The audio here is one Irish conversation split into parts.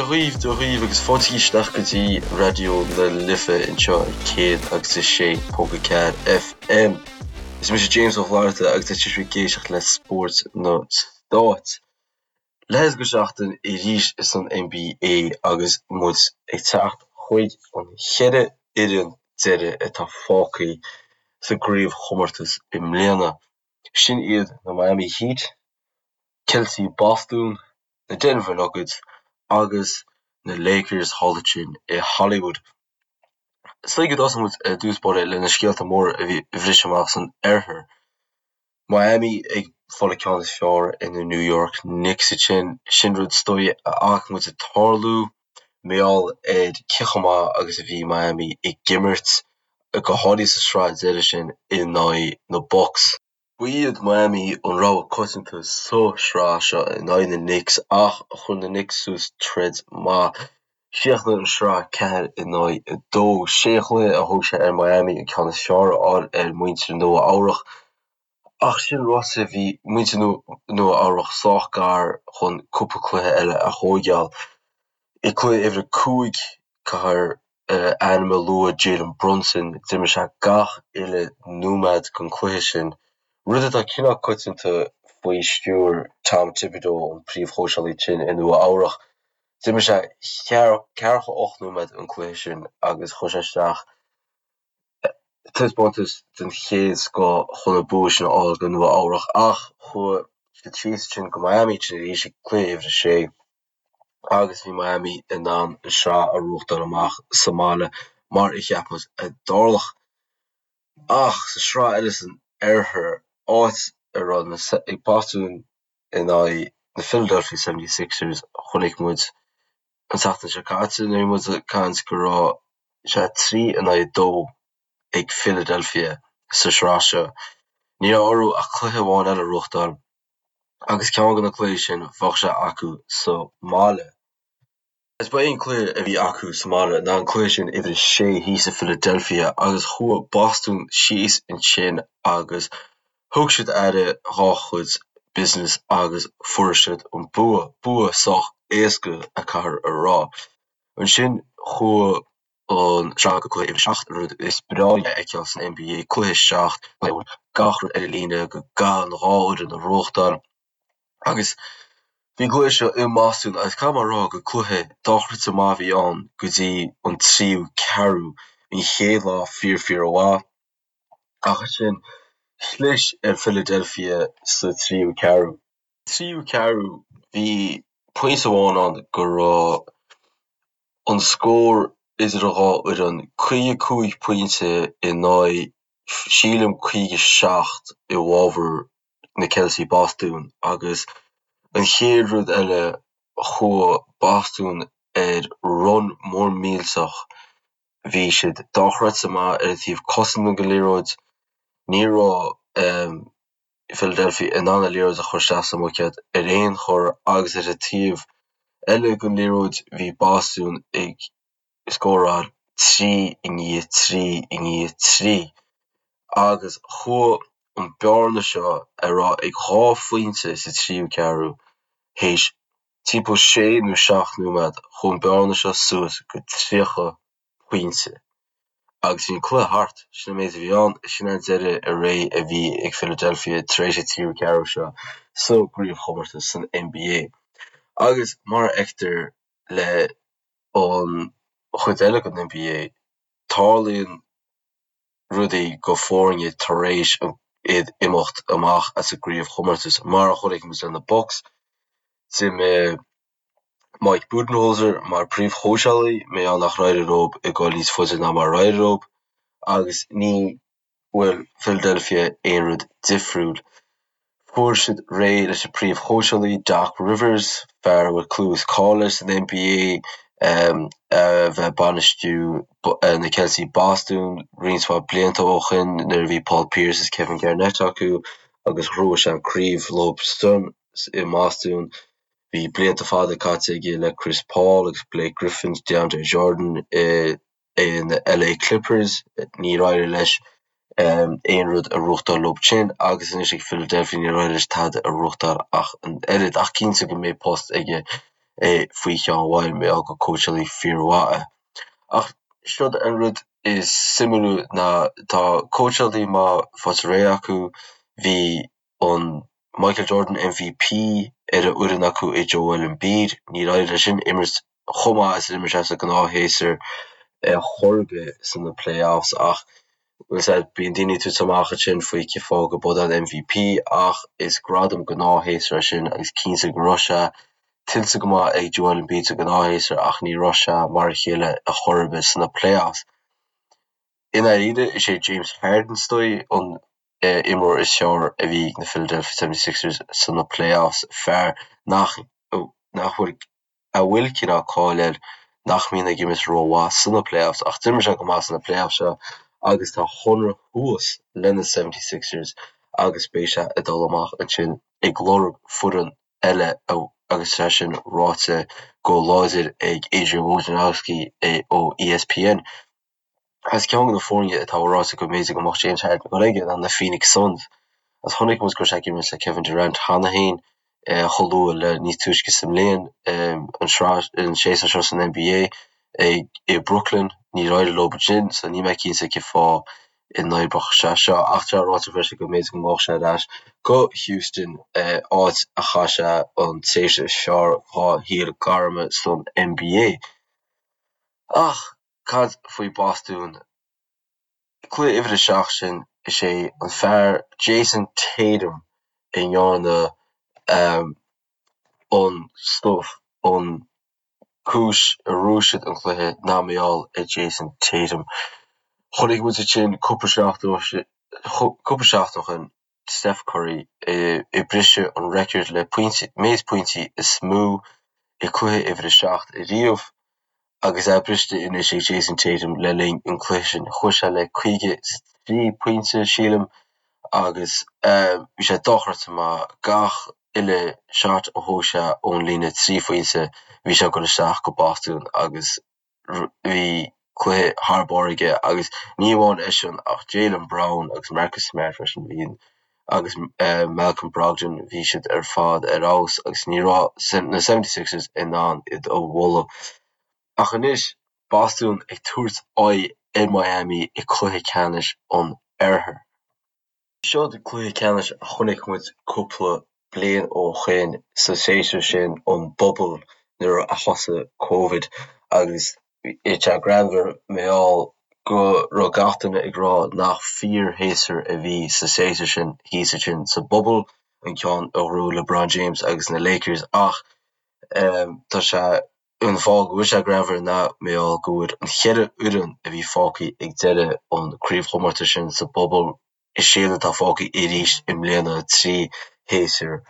dhaoibh, Dia dhaoibh agus fáilte isteach go dtí Raidió na Life anseo ar 106.4 FM. Is mise James Ó Flatharta agus tá sibh ag éisteacht le Spórt na Stát. Leath go seachtain arís san NBA agus muid ag teacht chuig an cheithre fhoireann deiridh atá fágtha sa gcraobhchomórtas i mbliana. Sin iad na Miami Heat, Ceiltigh Bostún, na Denver Nuggets agus na Lakers thall ansin i Hollywood. Is dóigh go dtosóidh muid ar dtús báire le na scéalta móra a bhí a bhris amach san oirthear. Miami ag fáil an ceann is fearr ar na New York Knicks ansin. Sin rud is dóigh a fhaca muid ag tarlú mar gheall ar cé chomh maith agus a bhí Miami ag imirt, go háirithe sa sraith deiridh sin in aghaidh na Bucks. Ba iad Miami an rogha coitianta sa sraith seo in aghaidh na Knicks ach chuir na Knicks suas troid maith. Chríochnaigh an sraith 4 in aghaidh 2. Sé chluiche a thóg sé ar Miami an ceann is fearr a fháil ar mhuintir Nua Eabhrach. Ach sin ráite bhí muintir Nua Eabhrach sách gar chun cúpla cluiche eile a thóigeáil. I cluiche uimhir a 5, caithfear ainm a lua Jalen Brunson, d'imir sé gach uile nóiméad den cluiche sin, rud atá cineál coitianta faoi stiúir Tom Thibodeau, an príomhchóitseálaí sin i Nua Eabhrach. D'imir sé ceathracha 8 nóiméad an cluiche sin agus chuir sé isteach taispeántas den chéad scoth chun an bua sin a fháil do Nua Eabhrach ach chuaigh siad síos ansin go Miami ansin arís ag cluiche uimhir a sé agus bhí Miami in ann an sraith a bhuachtáil amach sa mbaile mar a cheap muid a dtarlódh. Ach sa sraith eile san oirthear, áit a raibh na Bostún in aghaidh na Philadelphia 76ers, chonaic muid an tseachtain seo caite nuair a bhí muid ag caint go raibh sé 3 in aghaidh 2 ag Philadelphia sa sraith seo. Ní raibh orthu ach cluiche amháin eile a bhuachtáil agus ceann de na cluichí sin bheadh sé acu sa mbaile. Is ba é an cluiche a bhí acu sa mbaile ná an cluiche sin uimhir a sé thíos i Philadelphia agus chuaigh Bostún síos ansin agus thug siad aire dhá chuid business agus fuair siad an bua, bua sách éasca a caithfear a rá. Ansin chuaigh an sraith go cluiche uimhir a 7, rud is breá a fheiceáil san NBA, cluiche 7, gach rud ar an líne go gcaithfidh an dhá fhoireann a bhuachtáil. Agus bhí an cluiche seo i mBostún agus caithfidh mé a rá gur cluiche dochreidte maith a bhí ann go dtí an tríú ceathrú. Bhí an chéad leath fíor fíor mhaith ach ansin chlis ar Philadelphia sa tríú ceathrú. Tríú ceathrú bhí pointe amháin ann go raibh an scór idir an dhá fhoireann 55 pointe in aghaidh sílim 57 i bhfabhar na Ceiltigh Bostún agus an chéad rud eile chuaigh Bostún ar run mór millteach, bhí siad dochreidte maith ar an taobh cosanta den liathróid, ní raibh Philadelphia in ann an liathróid a chur isteach sa mbuicéad ar aon chor agus ar an taobh eile den liathróid bhí Bostún ag scóráil 3 i ndiaidh 3 i ndiaidh 3 agus chuaigh an bearna seo a raibh ag 2 phointe sa tríú ceathrú théis timpeall 6 nó 7 nóiméad, chuaigh an bearna seo suas go 30 pointe agus bhí an cluiche thart. Sin an méid a bhí ann, sin an deireadh ar ré a bhí ag Philadelphia tar éis an tríú ceathrú seo sa gcraobhchomórtas san NBA. Agus mar a fheictear le an chuid eile den NBA, tarlaíonn rudaí go foirne tar éis iad imeacht amach as an gcraobhchomórtas, mar a chonaic muid le na Bucks. D'imigh Mike Budenholzer mar príomhchóitseálaí, mar gheall nach éirigh leo ag dul níos faide ná mar a d'éirigh leo, agus ní bhfuil Philadelphia aon rud difriúil. Fuair siad réidh leis an príomhchóitseálaí, Doc Rivers, fear a bhfuil clú is cáil air san NBA, a bheith ag bainistiú na Ceiltigh Bostún roinnt mhaith blianta ó shin nuair a bhí Paul Pierce is Kevin Garnett acu agus ghnóthaigh sé an craobh leo san i mBostún. Bhí blianta fada caite aige le Chris Paul agus Blake Griffin, DeAndre Jordan i in LA Clippers, níor éirigh leis aon rud a ghnóthachtáil leo sin agus anois ag Philadelphia níor éirigh leis tada a ghnóthachtáil ach an oiread ach cinnte go mbeidh post aige faoi cheann amháin mar gheall gur cóitseálaí fíormhaith é. Ach seod an rud is suimiúla ná tá cóitseálaí maith faighte réidh acu, bhí an Michael Jordan MVP ar an fhoireann acu i Joel Embiid. Níor éirigh leis sin imirt chomh maith is a d'imir sé sa ghnáthshéasúr ar chor ar bith sna playoffs ach bhfuil 's a'd bíonn daoine ag tabhairt amach ansin faoi cén fáth go b'é an MVP ach is gradam gnáthshéasúir é sin agus cinnte go raibh sé tuillte go maith ag Joel Embiid sa ghnáthshéasúr ach ní raibh sé mar a chéile ar chor ar bith sna playoffs. I ndáiríre is é James Harden is dóigh an imreoir is fearr a bhí ag na Philadelphia 76ers sna playoffs, fear nach nach bhfuil a bhfuil cineál cáil air nach mbíonn ag imirt rómhaith sna playoffs ach d'imir sé go maith sna playoffs seo agus tá a chonradh thuas le na 76ers agus beidh sé ag dul amach ansin ag lorg foireann eile agus é sin ráite go láidir ag Adrian Wojnarowski ó ESPN. Agus ceann de na foirne atá ráite go mb'fhéidir go mbeadh James Harden ag dul aige ná na Phoenix Suns. Agus chonaic muid go raibh sé ag imirt le Kevin Durant cheana féin chomh luath le níos túisce sa mbliain, an sraith, an séasúr seo san NBA i Brooklyn. Níor éirigh leo ansin so níl mé cinnte cén fáth a n-oibreodh sé seo. Ach tá ráite freisin go mb'fhéidir go ngabhfadh sé ar ais go Houston, áit a chaith sé an tréimhse is fearr dhá shaol gairme san NBA. Ach Cad faoi Bhostún? Cluiche uimhir a 7 sin, is é an fear Jayson Tatum a ndearna an stuif, an cúis a bhuaigh siad an cluiche ná mar gheall ar Jayson Tatum. Chonaic muid ansin cúpla seachtain ó shin Steph Curry ag briseadh an record le méid pointí is mó i cluiche uimhir a 7 ariamh agus é briste anois ag Jayson Tatum le linn an cluiche sin. Chuaigh sé le 53 pointe, sílim, agus bhí sé dochreidte maith. Gach uile shot a thóg sé ón líne 3 phointe, bhí sé ag dul isteach go Bostún agus bhí cluiche thar barr aige agus ní amháin eisean ach Jaylen Brown agus Marcus Smart freisin, bhí agus Malcolm Brogdon, bhí siad ar fad ar fheabhas agus ní raibh na 76ers in ann iad a bhualadh. Ach anois, Bostún ag tabhairt aghaidh ar Miami i cluiche ceannais an Oirthir. Seo cluiche ceannais a chonaic muid cúpla bliain ó shoin sa séasúr sin, an bubble, nuair a thosaigh Covid agus bhí sé greannmhar mar gheall go raibh gach duine ag rá nach fíor-shéasúr a bhí sa séasúr sin thíos ansin sa bubble, an ceann a ghnóthaigh LeBron James agus na Lakers ach tá sé An fáth go bhfuil sé greannmhar ná mar gheall go bhfuil an cheithre fhoireann a bhí fágtha ag deireadh an craobhchomórtais sin sa bubble, is iad atá fágtha arís i mbliana, 3 shéasúr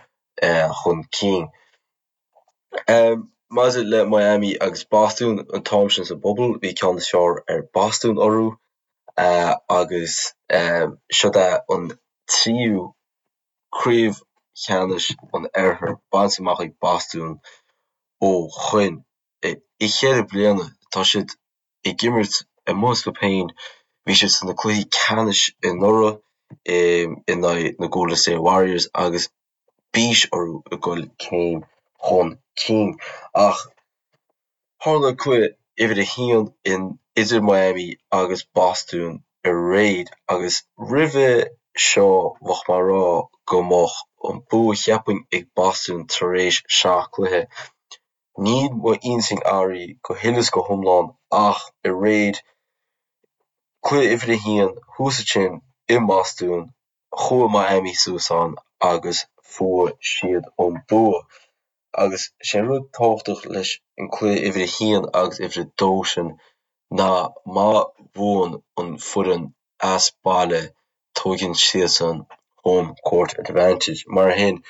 chun cinn. Maidir le Miami agus Bostún, an t-am sin sa bubble, bhí ceann is fearr ar Bostún orthu agus siod é an tríú Craobh Cheannais an Oirthir bainte amach ag Bostún ó shoin. I cheithre bliana tá siad ag imirt amuigh astu féin. Bhí siad sna cluichí ceannais anuraidh in aghaidh na Golden State Warriors agus bís orthu ag dul céim chun cinn. Ach Tharla cluiche uimhir a haon in idir Miami agus Bostún aréir agus roimhe seo bheadh mé ag rá go mbeadh an bua cheapfainn ag Bostún tar éis seacht cluiche. Níl m'intinn athraithe go huile is go hiomlán ach aréir, cluiche uimhir a haon thuas ansin i mBostún, chuaigh Miami suas ann agus fuair siad an bua. Agus sé an rud tábhachtach leis an cluiche uimhir a haon agus uimhir a dó sin ná má bhuann an foireann as baile tóigeann siadsan home court advantage. Mar sin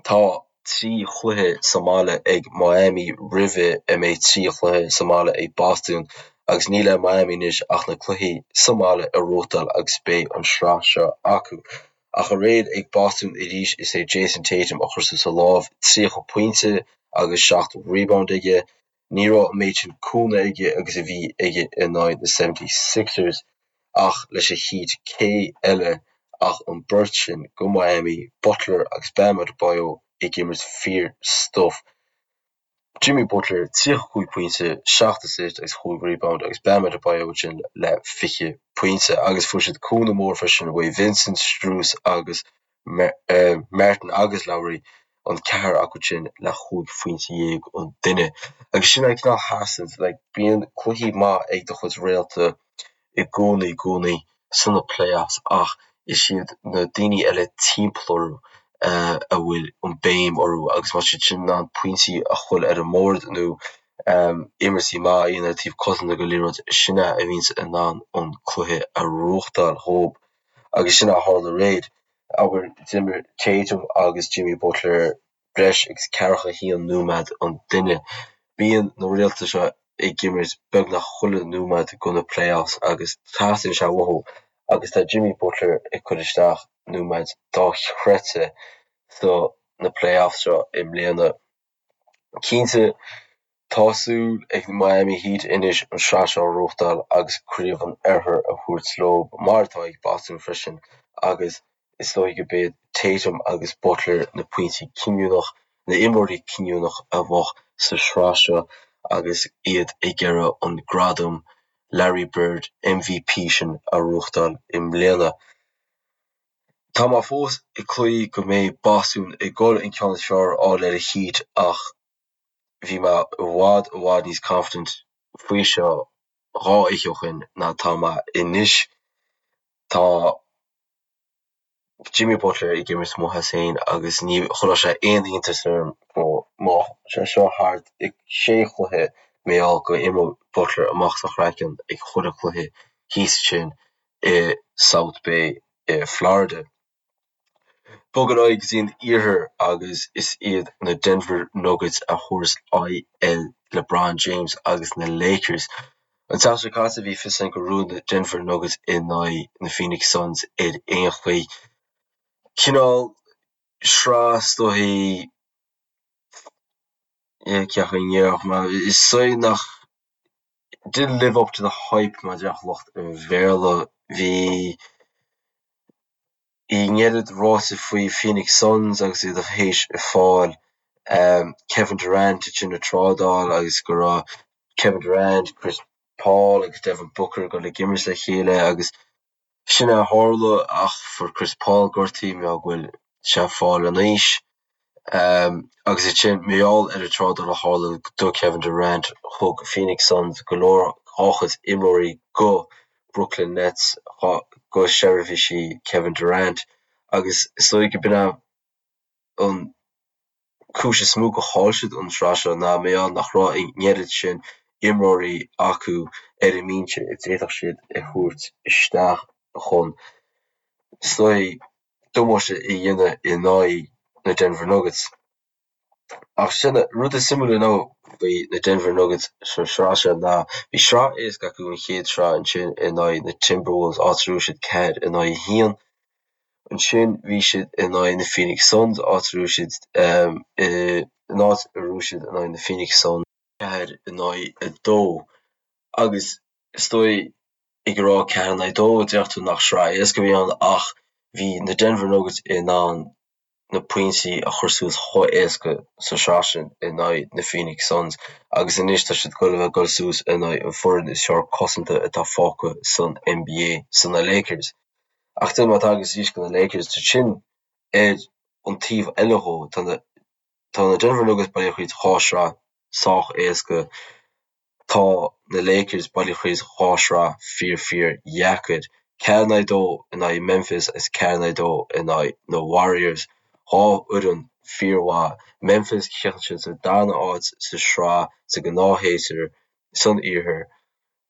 tá 3 chluiche sa mbaile ag Miami roimhe a mbeidh 3 chluiche sa mbaile ag Bostún agus níl ar Miami anois ach na cluichí sa mbaile a ghnóthachtáil agus beidh an sraith seo acu. Ach aréir ag Bostún arís is é Jayson Tatum a chuir suas a lámh, 30 pointe agus 7 rebound aige. Ní raibh an méid sin cúnamh aige agus a bhí aige in aghaidh na 76ers ach leis an Heat cé eile ach an beirt sin go Miami, Butler agus Bam Adebayo ag imirt fíor stuif. Jimmy Butler, 35 pointe, 7 assist agus 5 rebound agus Bam Adebayo ansin le 20 pointe agus fuair siad cúnamh mór freisin uaidh Vincent, Strus agus Martin agus Lowry, an ceathrar acu sin le 15 phointe an duine. Agus sin an cineál sheasann, like, bíonn cluichí maith ag do chuid réalta i gcónaí, i gcónaí sna playoffs ach is iad na daoine eile timpeall orthu a bhfuil an béim orthu agus má tá siad sin in ann pointí a chur ar an mbord nó imirtí maith a dhéanamh ar taobh cosanta den liathróid, sin é a bhíonns in ann an cluiche a reáchtáil dhób agus sin é a tharla aréir. Abair, d'imir Tatum agus Jimmy Butler breis agus ceathracha haon nóiméad an duine. Bíonn na réalta seo ag imirt beagnach chuile nóiméad de na playoffs agus teastaíonn sé uathu agus tá Jimmy Butler ag cur isteach nóiméid dochreidte sa na playoffs seo i mbliana. Cinnte tá súil ag Miami Heat anois an sraith seo a reáchtáil agus craobh an Oirthir a thabhairt leo mar atá ag Boston freisin agus Is dóigh go b'iad Tatum agus Butler na pointí cinniúnach, na imreoirí cinniúnach a bheadh sa sraith seo agus iad ag iarraidh an gradam Larry Bird MVP sin a reáchtáil i mbliana. Tá mé fós ag cloí go mbeidh Boston ag dul an ceann is fearr a fháil ar an Heat ach bhí mé i bhfad i bhfad níos confident faoi seo 2 oíche ó shin ná tá mé anois. Tá. Jimmy Butler ag imirt amuigh as féin agus ní chuirfeadh sé aon iontas orm go mbeadh sé seo thart i sé chluiche mar gheall go imreoidh Butler amach as a chraiceann ag chuile chluiche thíos ansin i South Bay i Florida. Bog ar aghaidh go dtí an iarthar agus is iad na Denver Nuggets a thabharfas aghaidh ar LeBron James agus na Lakers. An tseachtain seo caite bhí fios againn gur bhuaigh na Denver Nuggets in aghaidh na Phoenix Suns ar aon chaoi. Cineál sraith is dóichí cén chaoi a ndéarfadh mé, is dóigh nach didn't live up to the hype mar a déarfadh lucht an Bhéarla. Bhí an oiread ráite faoi Phoenix Suns agus iad théis fáil Kevin Durant ansin i trádáil agus go raibh Kevin Durant, Chris Paul agus Devin Booker ag dul ag imirt le chéile agus sin é a tharla ach fuair Chris Paul gortaithe mar gheall go bhfuil sé ag fáil in aois. Agus ansin mar gheall ar an trádáil a tharla do Kevin Durant, thug Phoenix Suns go leor dá chuid imreoirí go Brooklyn Nets go seirbhísí Kevin Durant agus is dóigh go b'in é an cúis is mó go chaill siad an sraith seo ná mar gheall nach raibh an oiread sin imreoirí acu ar an mbinse a d'fhéadfadh siad a thabhairt isteach chun is dóigh damáiste a dhéanamh in aghaidh na Denver Nuggets. Ach sin rud is suimiúla ná faoi na Denver Nuggets sa sraith seo ná bhí sraith éasca acu an chéad sraith ansin in aghaidh na Timberwolves áit a raibh siad 4 in aghaidh 1. Ansin bhí siad in aghaidh na Phoenix Suns áit a raibh siad in áit a raibh siad in aghaidh na Phoenix Suns 4 in aghaidh 2 agus is dóigh ag rá 4 in aghaidh 2, déarfadh tú nach sraith éasca a bhí ann ach bhí na Denver Nuggets in ann na pointí a chur suas chomh éasca sa sraith sin in aghaidh na Phoenix Suns agus anois tá siad ag dul a bheith ag dul suas in aghaidh an foireann is fearr cosanta atá fágtha san NBA, san na Lakers. Ach de má tagas arís go na Lakers, tá sin ar an taobh eile dhó, tá na Tá na Denver Nuggets bailithe thríd 2 shraith sách éasca. Tá na Lakers bailithe thríd 2 shraith fíor fíor dheacair. 4 in aghaidh 2 in aghaidh Memphis agus 4 in aghaidh 2 in aghaidh na Warriors. Dhá fhoireann fíor mhaith. Memphis chríochnaigh siad sa darna áit sa sraith sa gnáthshéasúr san iarthar.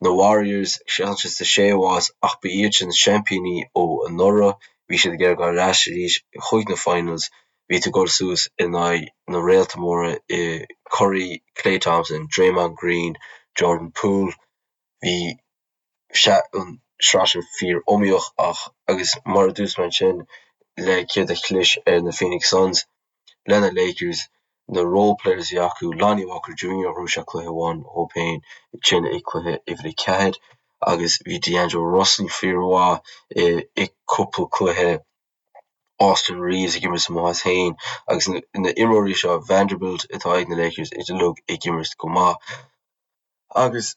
Na Warriors, chríochnaigh siad sa séú háit ach ba iad sin seaimpíní ó anuraidh. Bhí siad ag iarraidh dul ar ais arís chuig na finals. Bhí tú ag dul suas in aghaidh na réalta móra i Curry, Klay Thompson, Draymond Green, Jordan Poole. Bhí an sraith sin fíor iomaíoch ach agus mar a dúirt mé ansin le céard a chlis ar na Phoenix Suns, le na Lakers, na role players a bhí acu, Lonnie Walker Junior, ghnóthaigh sé cluiche amháin dhó féin ansin i cluiche uimhir a ceathair agus bhí D'Angelo Russell fíormhaith i cúpla cluiche. Austin Reaves ag imirt amuigh as féin agus na imreoirí seo, Vanderbilt atá ag na Lakers uilig ag imirt go maith. Agus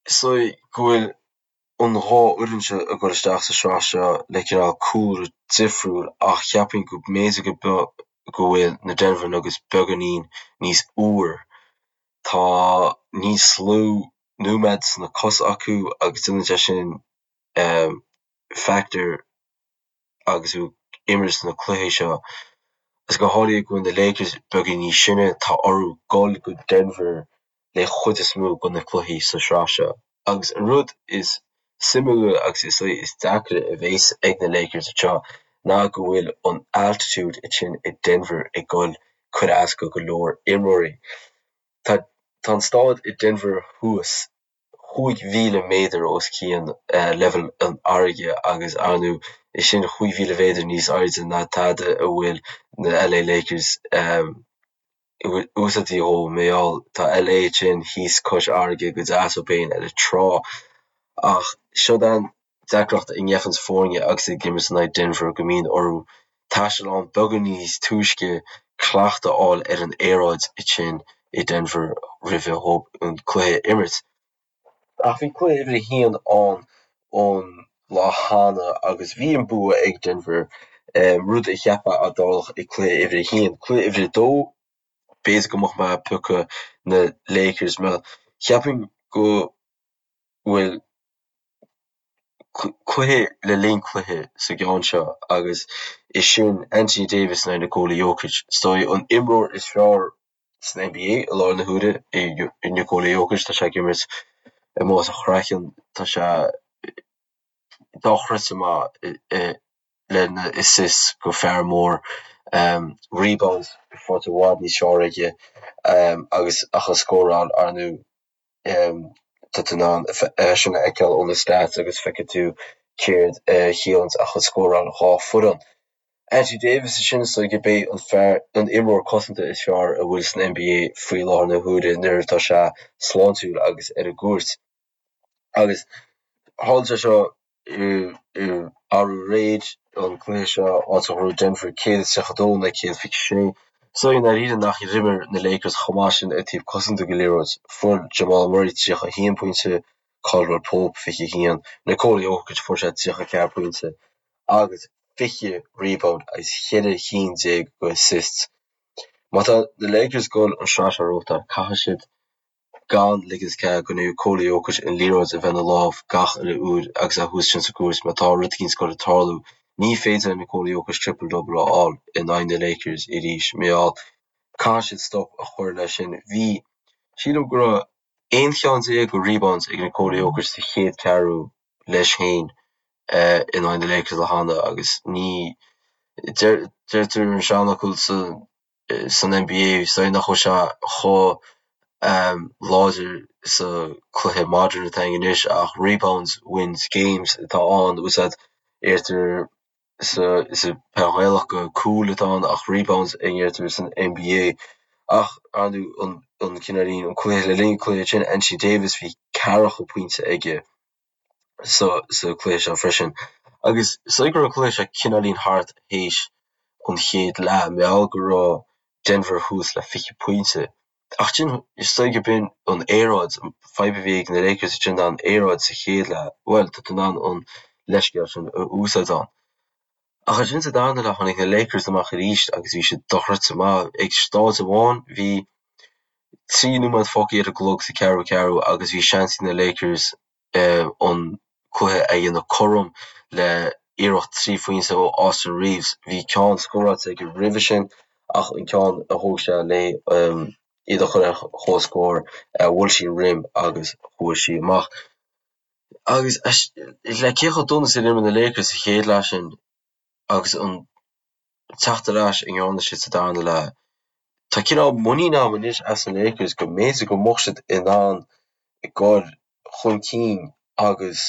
is dóigh go bhfuil an dhá fhoireann seo ag dul isteach sa sraith seo le cineál cúlra difriúil ach cheapfainn go mb'fhéidir go go bhfuil na Denver Nuggets beagáinín níos úire. Tá níos lú nóiméad sna cosa acu agus déanann sé sin factor agus tú ag imirt sna cluichí seo. Agus go háirithe go bhfuil na Lakers beagáinín níos sine, tá orthu dul go Denver le chuid is mó de na cluichí sa sraith seo. Agus an rud is suimiúla agus is is deacra a bhéas ag na Lakers anseo ná go bhfuil an altitude ansin i Denver ag dul cur as go go leor imreoirí. Tá tá an staid i Denver thuas 5,000 méadar os cionn leibhéal an fharraige agus ar ndóigh is sin 5,000 mhéadar níos airde ná tada a bhfuil na LA Lakers úsáidte dhó mar gheall tá LA ansin thíos cois fharraige go deas dóibh féin ar an trá ach siod an deacracht a ngeibheanns foirne agus ag imirt in aghaidh Denver go mbíonn orthu taisteal ann beagán níos túisce cleachtadh a fháil ar an aeráid ansin i Denver roimhe dhóibh an cluiche a imirt. Ach bhí cluiche uimhir a haon ann an lá cheana agus bhí an bua ag Denver, rud a cheapfá a dtarlódh i cluiche uimhir a haon. Cluiche uimhir a dó, b'fhéidir go mbeadh mé ag piocadh na Lakers mar cheapfainn go bhfuil cluiche le linn cluiche sa gceann seo agus is sin Anthony Davis in aghaidh Nikola Jokic. Is dóigh an imreoir is fearr san NBA i láthair na huaire é Nikola Jokic. Tá sé ag imirt amuigh as a chraiceann. Tá sé dochreidte maith lena assists go fear mór. Rebounds faighte i bhfad níos fearr aige agus ach an scóráil ar ndóigh. Tá tú in ann é sin a fheiceáil ó na stats agus feicfidh tú céard a chiallaíonns ach an scóráil dhá foireann. Anthony Davis ansin is dóigh gurb é an fear, an imreoir cosanta is fearr a bhfuil san NBA faoi láthair na huaire nuair atá sé sláintiúil agus ar an gcúirt. Agus tharla sé seo arú aréir, an cluiche seo, áit a ghnóthaigh Denver 132 in aghaidh 126. Is dóigh i ndáiríre nach d'imir na Lakers chomh maith sin ar taobh cosanta den liathróid. Fuair Jamal Murray 31 pointe, Caldwell Pope 21, Nikola Jokic fuair sé 34 pointe agus 20 rebound agus 14 cinn de assists. Má tá na Lakers ag dul an sraith seo a ghnóthachtáil, caithfidh siad gan ligint cead go Nikola Jokic an liathróid a bheith ina lámh gach uile uair agus é thuas ansin sa gcúirt má tá rud éicint ag dul ag tarlú. Ní féidir le Nikola Jokic triple double a fháil in aghaidh na Lakers arís mar gheall caithfidh siad stop a chur leis sin. Bhí, sílim go raibh 11 cheann de rebounds ag Nikola Jokic sa chéad ceathrú leis féin in aghaidh na Lakers lá cheana agus ní, deirtear an seanfhocal sa san NBA is dóigh nach bhfuil sé chomh láidir sa cluiche modern atá againn anois ach rebounds wins games atá ann úsáid deirtear sa sa peil Ghaelach go cúl atá ann ach rebounds a ndeirtear san NBA ach ar ndóigh an an cineáilín an cluiche le linn an cluiche sin Anthony Davis bhí ceathracha pointe aige sa sa cluiche seo freisin. Agus is dóigh go raibh an cluiche seo cineáilín thart théis an chéad leath, mar gheall go raibh Denver thuas le 20 pointe. Ach sin, is dóigh go b'in an aeráid, an fadhb a bhí ag na Lakers ansin ná an aeráid sa chéad leath. Bhuel, tá tú in ann an leithscéal sin a úsáid ann. Ach ansin sa darna leath tháinig na Lakers amach arís agus bhí siad dochreidte maith. Ag staid amháin bhí 3 nóiméad fágtha ar an gclog sa ceathrú ceathrú agus bhí seans ag na Lakers an cluiche a dhéanamh cothrom le iarracht 3 phointe ó Austin Reaves. Bhí ceann scóráilte aige roimhe sin ach an ceann a thóg sé le iad a chur ar comhscór, bhuail sí an rim agus chuaigh sí amach. Agus le cé chomh dona is a d'imir na Lakers sa chéad leath sin agus an teacht ar ais a ndearna siad sa darna leath. Tá cineál muinín agam anois as na Lakers go mb'fhéidir go mbeadh siad in ann dul chun cinn agus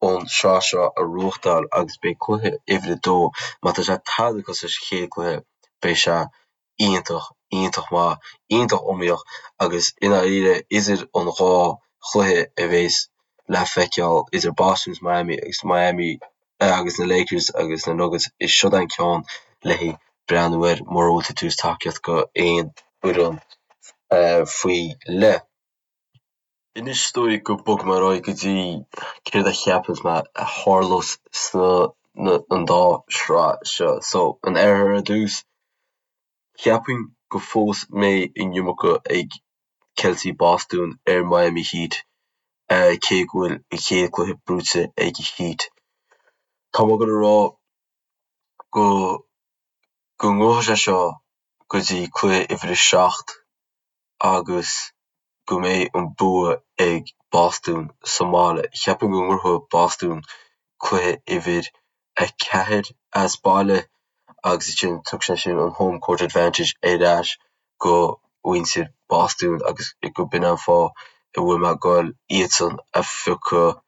an sraith seo a ghnóthachtáil agus beidh cluiche uimhir a dó, má tá sé tada cosúil leis an chéad cluiche, beidh sé iontach, iontach maith, iontach iomaíoch agus i ndáiríre idir an dhá chluiche a bheas le feiceáil idir Boston agus Miami agus Miami. Agus na Lakers agus na Nuggets, is siod an ceann le haghaidh breathnú air mura bhfuil tú ag tabhairt tacaíocht go aon fhoireann faoi leith. Anois is dóigh go bogfaidh mé ar aghaidh go dtí céard a cheapanns mé a tharlós sna an dá shraith seo. So, an Oirthear ar dtús, cheapfainn go fós mbeidh an iomarca ag Celtigh Bostún ar Miami Heat cé go bhfuil an chéad cluiche buaite ag Heat. Tá mé ag dul a rá go go ngabhfaidh sé seo go dtí cluiche uimhir a 7 agus go mbeidh an bua ag Bostún sa mbaile. Cheapfainn go ngnóthóidh Bostún cluiche uimhir 4 as baile agus ansin tiocfaidh sé sin an home court advantage ar ais go mhuintir Bostún agus go b'in an fáth a bhfuil mé ag goil iadsan a phiocadh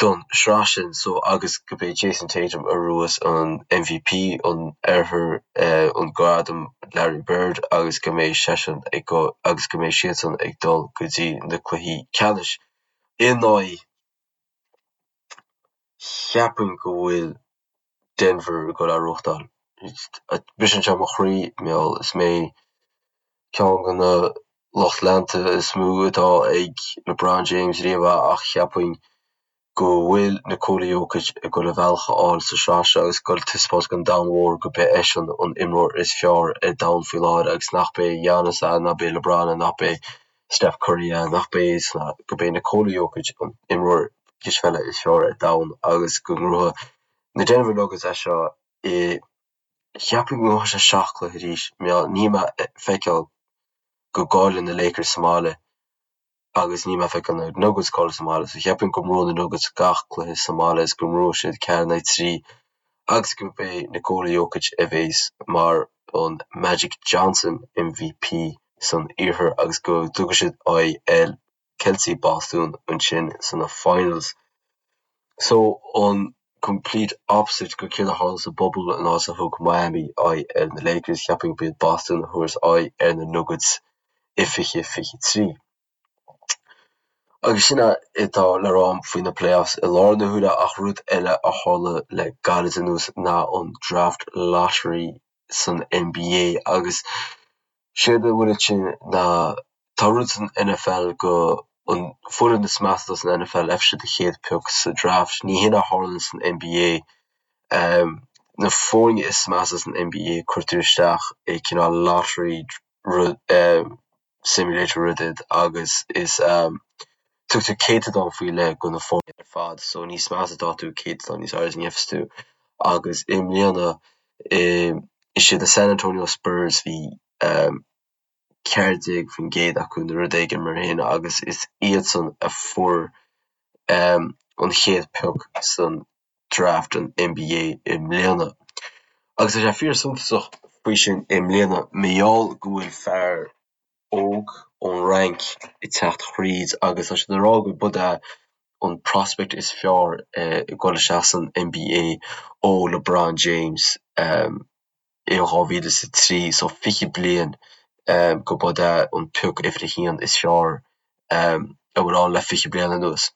don sraith sin so agus go b'é Jayson Tatum a ghnóthós an MVP an Oirthir, an gradam Larry Bird agus go mbeidh seisean ag agus go mbeidh siadsan ag dul go dtí na cluichí ceannais in aghaidh cheapfainn go bhfuil Denver ag dul a ghnóthachtáil. Briseann sé mo chroí, mar gheall is mé ceann de na lucht leanta is mó atá ag LeBron James riamh ach cheapfainn go bhfuil Nikola Jokic ag dul a bhealach a fháil sa sraith seo agus ag dul taispeáint don domhan mhór go b'é eisean an imreoir is fearr ar domhan faoi láthair agus nach b'é Giannis é, nach b'é LeBron é, nach b'é Steph Curry é, nach b'é go b'é Nikola Jokic an imreoir cispheile is fearr ar domhan agus go ngnóthóidh na Denver Nuggets é seo i Cheapfainn go ngnóthóidh sé 7 cluiche arís. Níl mé ag feiceáil go gcaillfidh na Lakers sa mbaile agus níl mé ag feiceáil na Nuggets ag cailleadh sa mbaile. So cheapfainn go mbuafaidh na Nuggets gach cluiche sa mbaile is go mbuafaidh siad 4 in aghaidh 3 agus go b'é Nikola Jokic a bhéas mar an Magic Johnson MVP san Iarthar agus go dtabharfaidh siad aghaidh ar Celtigh Bostún ansin sna finals. So an complete opposite go céard a tharla sa bubble an áit a thug Miami aghaidh ar na Lakers, cheapfainn go b'iad Boston a thabharfas aghaidh ar na Nuggets i 2023. Agus sin é atá le rá faoi na playoffs i láthair na huaire ach rud eile a tharla le gairid anuas ná an draft lottery san NBA agus séard a bhfuil ansin ná tá rud san NFL go an foireann is measa san NFL fhaigheann siad an chéad pioc sa draft. Ní hin a tharlaíonn san NBA. Na foirne is measa san NBA cuirtear isteach i cineál lottery rud simulator rud iad agus is tugtar céatadán faoi leith go na foirne ar fad so níos measa atá tú céatadán níos airde a gheobhas tú agus i mbliana is iad na San Antonio Spurs bhí 14% acu nó rud éigin mar sin agus is iadsan a fuair an chéad pioc san draft an NBA i mbliana. Agus tá sé fíor suntasach faoi sin i mbliana mar gheall go bhfuil fear óg ón Fhrainc ag teacht thríd agus tá siad ag rá go b'é an prospect is fearr ag dul isteach san NBA ó LeBron James i 2003, so 20 bliain go b'é an pioc uimhir a haon is fearr a bhfuil ann le 20 bliain anuas.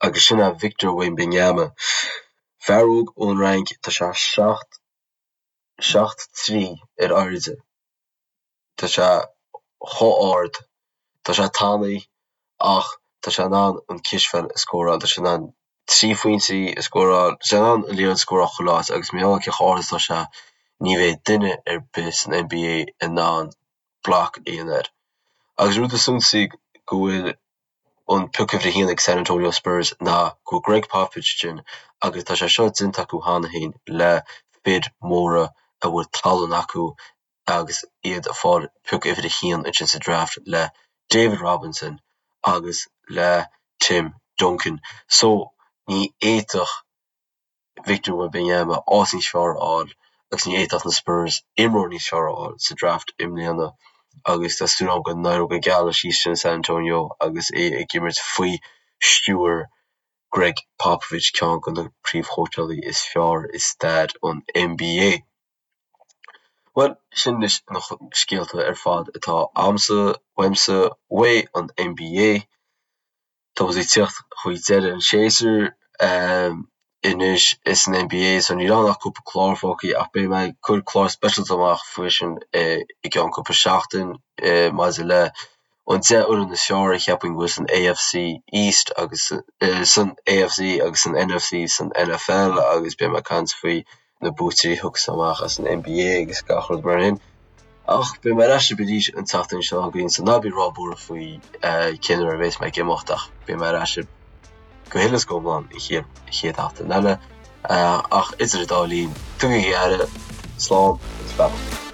Agus sin é Victor Wembanyama. Fear óg ón Fhrainc, tá sé 7 7 3 ar airde. Tá sé chomh ard, tá sé tanaí ach tá sé in ann an cispheil a scóráil, tá sé in ann 3 phointí a scóráil, tá sé in ann an liathróid a scóráil chuile áit agus mar gheall cé chomh ard is atá sé, ní bheidh duine ar bith san NBA in ann block a dhéanamh air. Agus rud is suntasaí go bhfuil an pioc uimhir a haon ag San Antonio Spurs ná go bhfuil Gregg Popovich ansin agus tá sé seo déanta acu cheana féin le fir mhóra a bhfuil tallann acu agus iad ag fáil pioc uimhir a haon ansin sa draft le David Robinson agus le Tim Duncan. So ní fhéadfadh Victor Wembanyama áit níos fearr a fháil agus ní fhéadfadh na Spurs imreoir níos fearr a fháil sa draft i mbliana agus tá súil agam go n-éireoidh go geal leis thíos sin i San Antonio agus é ag imirt faoi stiúir Gregg Popovich, ceann de na príomhchóitseálaí is fearr i stair an NBA. Bhuel, sin anois na scéalta ar fad atá a'msa, uaimse, uaidh an NBA. Tá muid ag tíocht chuig deireadh an tséasúir. anois is an NBA so níl ann ach cúpla clár fágtha ach beidh mé ag cur clár speisialta amach faoi sin i gceann cúpla seachtain maidir le an 10 fhoireann is fearr a cheapaim go bhfuil san AFC East agus san AFC agus san NFC san NFL agus beidh mé ag caint faoi na buaiteoirí a thiocfas amach as an NBA agus gach rud mar sin. Ach beidh mé ar ais libh arís an tseachtain seo chugainn so ná bí róbhuartha faoi cén uair a bheas mé ag imeacht ach beidh mé ar ais libh go huile is go hiomlán an chéad chéad sheachtain eile. Ach idir an dá linn, tugaigí aire, slán agus beannacht.